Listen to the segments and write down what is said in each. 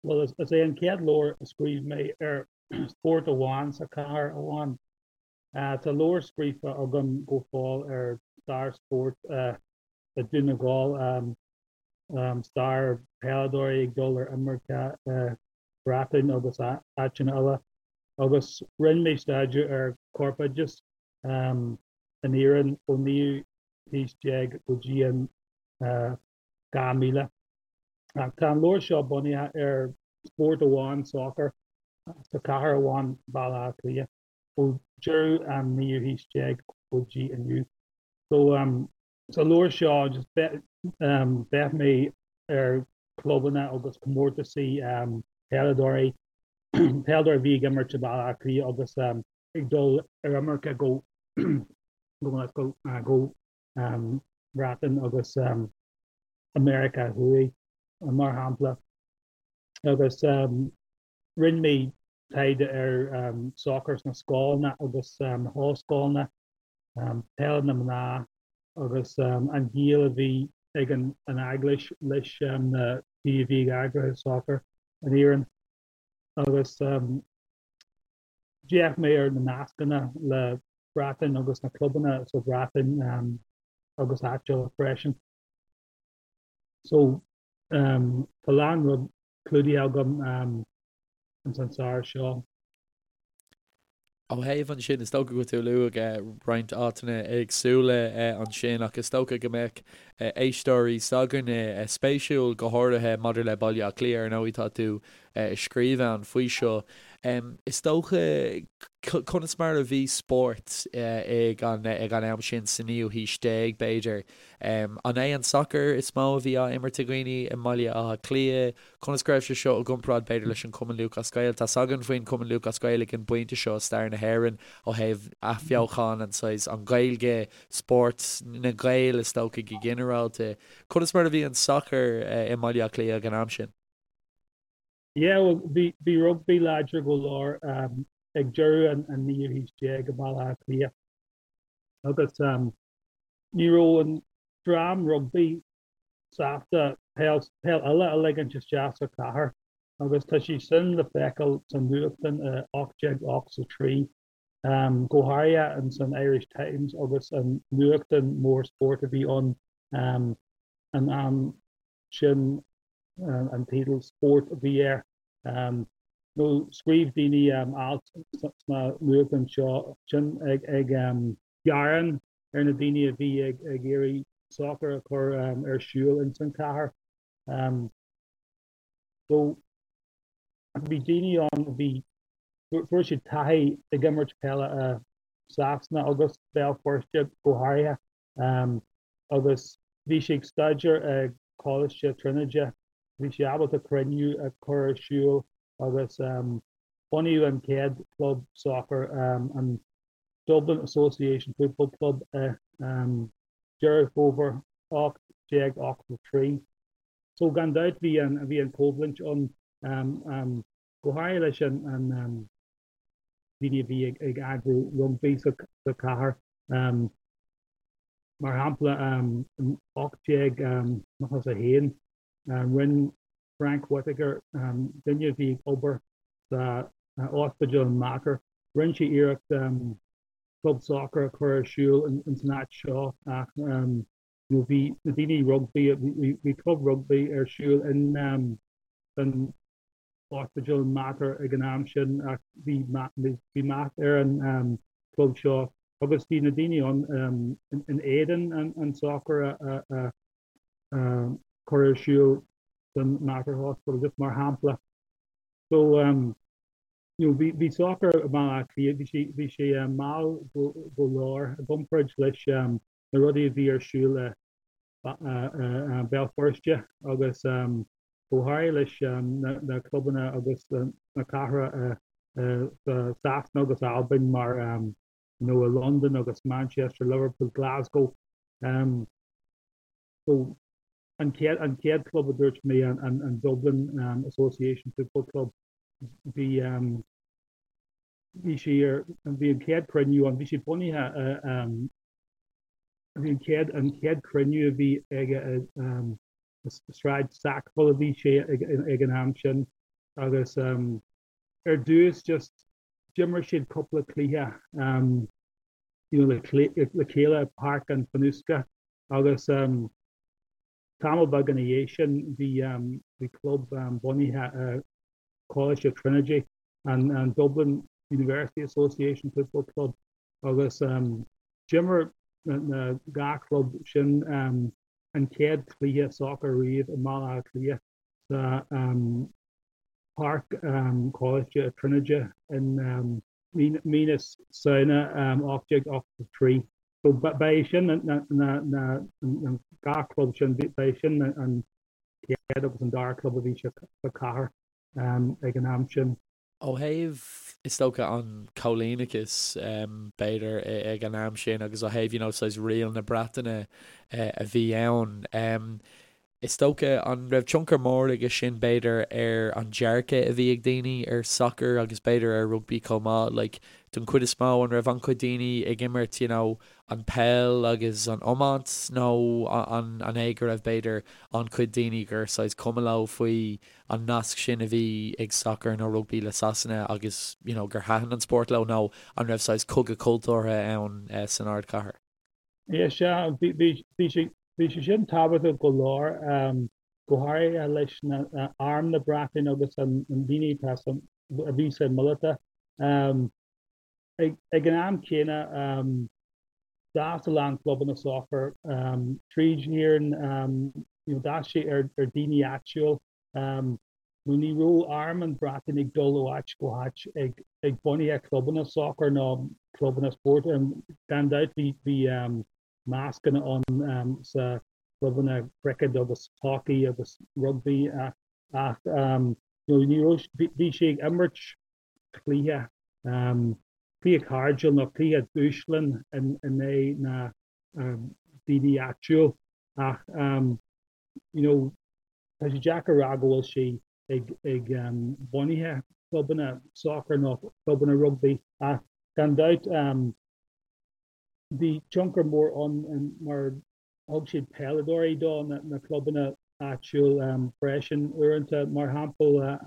Bhuel, is é an chéad leabhar a scríobh mé ar spórt amháin sa chathair amháin. Tá leabhar scríofa agam go fóill ar stair spóirt i Dún na nGall, stair peileadóirí ag dul ar imirce i Breatain agus áiteanna eile, agus rinne mé staidéar ar chorpoideachas in Éirinn ón naoú haois déag go dtí an 2000. Ach tá an leabhar seo bunaithe ar spórt amháin, sacar, sa chathair amháin, Baile Átha Cliath, ó deireadh an naoú haois déag go dtí inniu. So sa leabhar seo just d'fhéach mé ar clubanna agus comórtasaí peileadóirí, peileadóirí a bhí ag imirt i Baile Átha Cliath agus ag dul ar imirce go go go Breatain agus America Thuaidh, mar shampla. Agus rinne mé taighde ar sacar sna scoileanna agus na hollscoileanna, peil na mná agus an gaol a bhí ag an Eaglais leis na daoine a bhí ag eagrú sacar in Éirinn. Agus D'fhéach mé ar na nascanna le Breatain agus na clubanna sa Bhreatain agus áit eile freisin. So tá a lán rud clúdaithe agam ins an saothar seo. Ó thaobh ansin, is dócha go bhfuil tú ag lua roinnt áiteanna éagsúla ansin ach is dócha go mbeadh éisteoirí s'againne spéisiúil go háirithe maidir le Baile Átha Cliath, ar ndóigh tá tú ag scríobh ann faoi seo. Is dócha, conas mar a bhí spórt ag an ag an am sin sa naoú haois déag, b'fhéidir? An é an sacar is mó a bhí á imirt ag dhaoine i mBaile Átha Cliath? Conas go raibh sé seo i gcomparáid, b'fhéidir, leis an Cumann Lúthchleas Gael? Tá's againn faoin Cumann Lúthchleas Gael ag an bpointe seo i stair na hÉireann ó thaobh athbheochan an saghas, an Ghaeilge, spórt na nGael is dócha go ginearálta. Conas mar a bhí an sacar i mBaile Átha Cliath ag an am sin? Yeah, well, bhí, bhí rugbaí láidir go leor um, ag deireadh an, an naoú haois déag i mBaile Átha Cliath. Agus um, ní raibh an dream rugbaí sásta peil, peil eile a ligint isteach sa chathair agus tá sé sin le feiceáil sa nuachtán i 1883, um, go háirithe in san Irish Times agus an nuachtán mór spóirt a bhí ann um, an am sin an teideal Sport a bhí air. Nó scríobh daoine alt sna nuachtáin seo sin ag gearán ar na daoine a bhí ag iarraidh sacar a chur ar siúl ins an chathair. So bhí daoine ann a bhí, fuair siad taithí ag imirt peile i Sasana agus Béal Feirste go háirithe. Agus bhí sé ag staidéar i Coláiste Tríonóide. Bhí sé ábalta cruinniú a chur ar siúl agus bunaíodh an chéad chlub sacair, an Dublin Association Football Club i Deireadh Fómhair 1883. So gan dabht bhí an bhí an choimhlint ann go háirithe leis an daoine a bhí ag eagrú rugbaí sa chathair. Mar shampla, in 1891, rinne Frank Whitaker, duine a bhí ag obair sa ospidéal in Mater, rinne sé iarracht club sacair a chur ar siúl ins an áit seo ach bhí na daoine rugbaí, bhí club rugbaí ar siúl in san ospidéal Mater ag an am sin ach bhí bhí meath ar an club seo agus bhí na daoine ann in éadan an sacar a chur ar siúl san Mater Hospital just mar shampla. So um, you know, bhí bhí sacar i mBaile Átha Cliath, bhí sé bhí sé mall go go leor i gcomparáid leis um, na rudaí a bhí ar siúl i Béal Feirste agus go háirithe leis na clubanna agus na cathracha sa Sasana agus Albain mar you know i Londain agus Manchester, Liverpool, Glasgow. So an chéad an chéad club a dúirt mé an an Dublin Association Football Club bhí bhí sé ar bhí an chéad cruinniú ann bhí sé bunaithe Bhí an chéad an chéad cruinniú a bhí aige i Sráid Sackville a bhí sé ag an am sin. Agus ar dtús just d'imir siad cúpla cluiche you know le chéile i Páirc an Fhionnuisce agus tamall beag ina dhiaidh sin bhí bhí club bunaithe i Coláiste Trinity, an Dublin University Association Football Club agus d'imir na 2 chlub sin an chéad chluiche sacair riamh i mBaile Átha Cliath sa Páirc Choláiste Tríonóide in mí na Samhna 1883. So ba é sin na 2 chlub sin, ba é sin an chéad agus an dara club a bhí sa chathair ag an am sin. Ó thaobh, is dócha, an choilíneachais, b'fhéidir, ag an am sin agus ó thaobh, you know, saghas riail na Breataine a bhí ann, is dócha, an raibh tionchar mór aige sin, b'fhéidir, ar an dearcadh a bhí ag daoine ar sacar agus b'fhéidir ar rugbaí chomh maith? Like, don chuid is mó, an raibh an-chuid daoine ag imirt, you know, an peil agus an iomáint nó an é go raibh, b'fhéidir, an-chuid daoine gur saghas cuma leo faoi an nasc sin a bhí ag sacar nó rugbaí le Sasana agus you know gur thaitin an spórt leo nó an raibh saghas cogadh cultúrtha ann san ardchathair? Yeah, sea, bhí sé bhí sé sin tábhachtach go leor, go háirithe leis na arm na Breataine agus an daoine atá a bhí sa míleata. Ag an am céanna, d'fhás a lán clubanna sacair tríd Éirinn, d'fhás sé ar daoine áitiúil. Nó ní raibh arm an Bhreatain ag dul ó áit go háit ag bunaithe clubanna sacair nó clubanna spóirt. Gan dabht bhí nascanna ann sa clubanna cricket agus hockey agus rugbaí ach ní raibh, bhí sé ag imirt cluiche, cluiche cairdiúil nó cluiche dúshláin in aghaidh na daoine áitiúil ach you know tá sé deacair a rá go bhfuil sé ag ag bunaithe clubanna sacair nó clubanna rugbaí ach gan dabht bhí tionchar mór ann mar thug siad peileadóirí do na clubanna áitiúil freisin uaireanta, mar shampla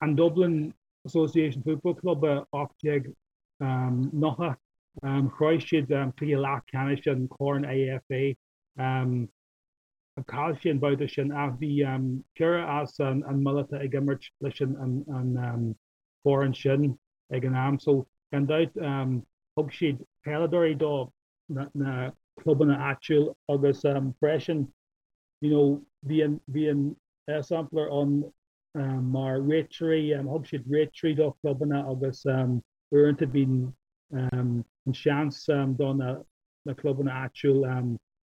an Dublin Association Football Club i 1890, shroich siad cluiche leathcheannais an Chorn IFA. Chaill siad an babhta sin ach bhí ceithre as an míleata ag imirt leis an foireann sin ag an am. So gan dabht thug siad peileadóirí do na clubanna áitiúil agus freisin you know bhí an bhí an sampla ann mar réiteoirí, thug siad réiteoirí do chlubanna agus uaireanta bíonn an seans do na na clubanna áitiúil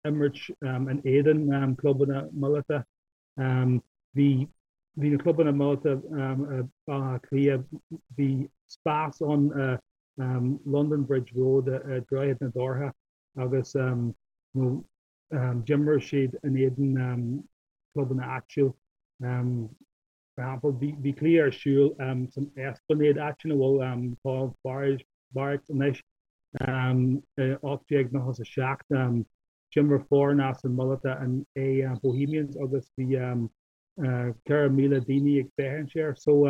imirt in éadan clubanna míleata. Bhí bhí na clubanna míleata i Baile Átha Cliath, bhí spás ann London Bridge Road i Droichead na Dothra agus d'imir siad in éadan clubanna áitiúil. Mar shampla, bhí cluiche ar siúl san Esplanade, áit ina bhfuil tá Barracks anois, i 1897. D'imir foireann as an míleata in aghaidh Bohemians agus bhí 4,000 daoine ag féachaint air. So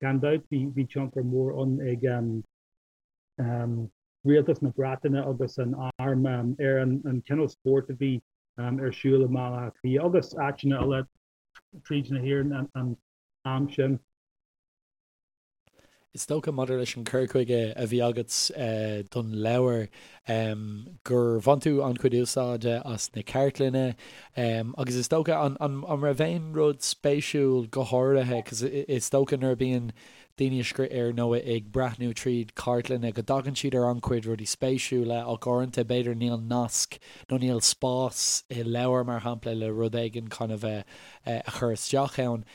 gan dabht bhí tionchar mór ann ag rialtas na Breataine agus an arm ar an cineál spóirt a bhí ar siúl i mBaile Átha Cliath agus áiteanna eile tríd na hÉireann an am sin. Is dócha, maidir leis an cur chuige a bhí agat don leabhar, gur bhain tú an-chuid úsáide as na cartlanna agus is dócha, an raibh aon rud spéisiúil go háirithe, 'cause is dócha nuair a bhíonn daoine ag scríobh ar nó ag breathnú tríd cartlanna go dtagann siad ar an-chuid rudaí spéisiúla ach uaireanta b'fhéidir níl nasc nó níl spás i leabhar mar shampla le rud éigin kind of a chur isteach ann.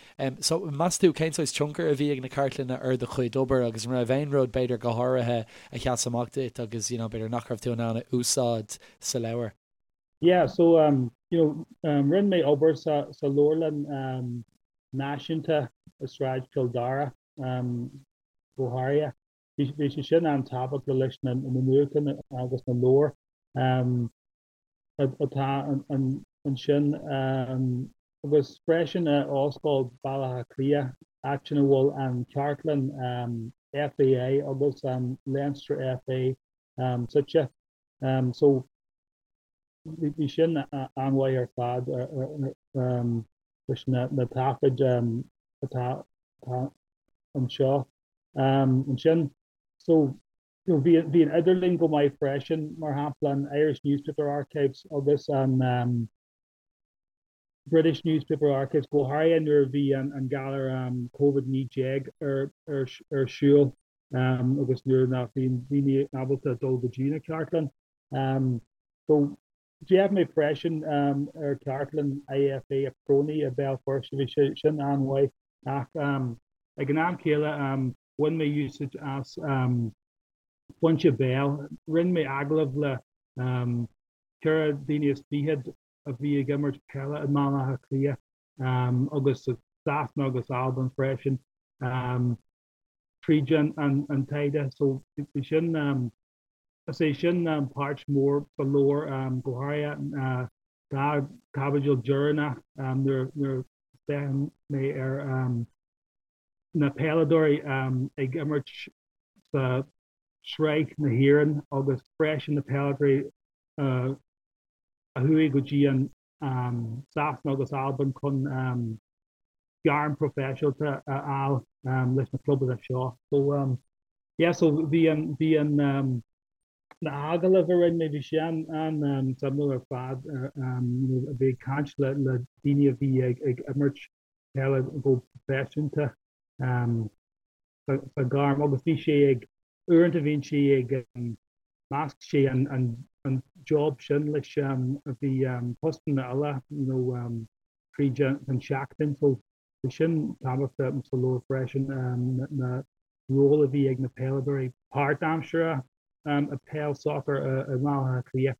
So, meas tú, cén saghas tionchar a bhí ag na cartlanna ar do chuid obair agus an raibh aon rud, b'fhéidir, go háirithe a sheas amach duit agus, you know, b'fhéidir nach raibh tú in ann a úsáid sa leabhar? Yeah, so, you know, rinne mé obair sa sa leabharlann um, náisiúnta i Sráid Chill Dara um, go háirithe. Bhí bhí sé sin an-tábhachtach leis na na nuachtáin agus na leabhair um, atá ansin agus freisin i Ollscoil Bhaile Átha Cliath. áiteanna a bhfuil an chartlann FAI agus an Leinster FA suite. So bhí sin an-mhaith ar fad leis na taifid atá anseo. Ansin so bhí an idirlíon go maith freisin, mar shampla an Irish Newspaper Archives agus an British Newspaper Archives, go háirithe nuair a bhí an galar Covid-19 ar siúl agus nuair nach bhí daoine ábalta dul go dtí na cartlann. So d'fhéach mé freisin ar chartlann IFA PRONI i Béal Feirste, bhí sé sin an-mhaith ach ag an am céile bhain mé úsáid as foinse béil. Rinne mé agallamh le 24 daoine a bhí ag imirt peile i mBaile Átha Cliath agus i Sasana agus Albain freisin tríd an taighde. So bhí sin, is é sin páirt mhór sa leabhar, go háirithe dá chaibidil deireanach nuair a féachann mé ar na peileadóirí ag imirt sa Sraith na hÉireann agus freisin na peileadóirí a chuaigh go dtí an Sasana agus Albain chun gairm proifisiúnta a fháil leis na clubanna seo. So yeah, so bhí an bhí an na hagallaimh a rinne mé, bhí sé an an suimiúil ar fad a bheith ag caint le le daoine a bhí ag ag imirt peile go proifisiúnta sa ghairm agus bhí sé ag uaireanta bhíonn sé ag measc sé an an an job sin leis a bhí postanna eile you know tríd an seachtain so bhí sin tábhachtach sa leabhar freisin na ról a bhí ag na peileadóirí páirtaimseartha i peil soccer i mBaile Átha Cliath.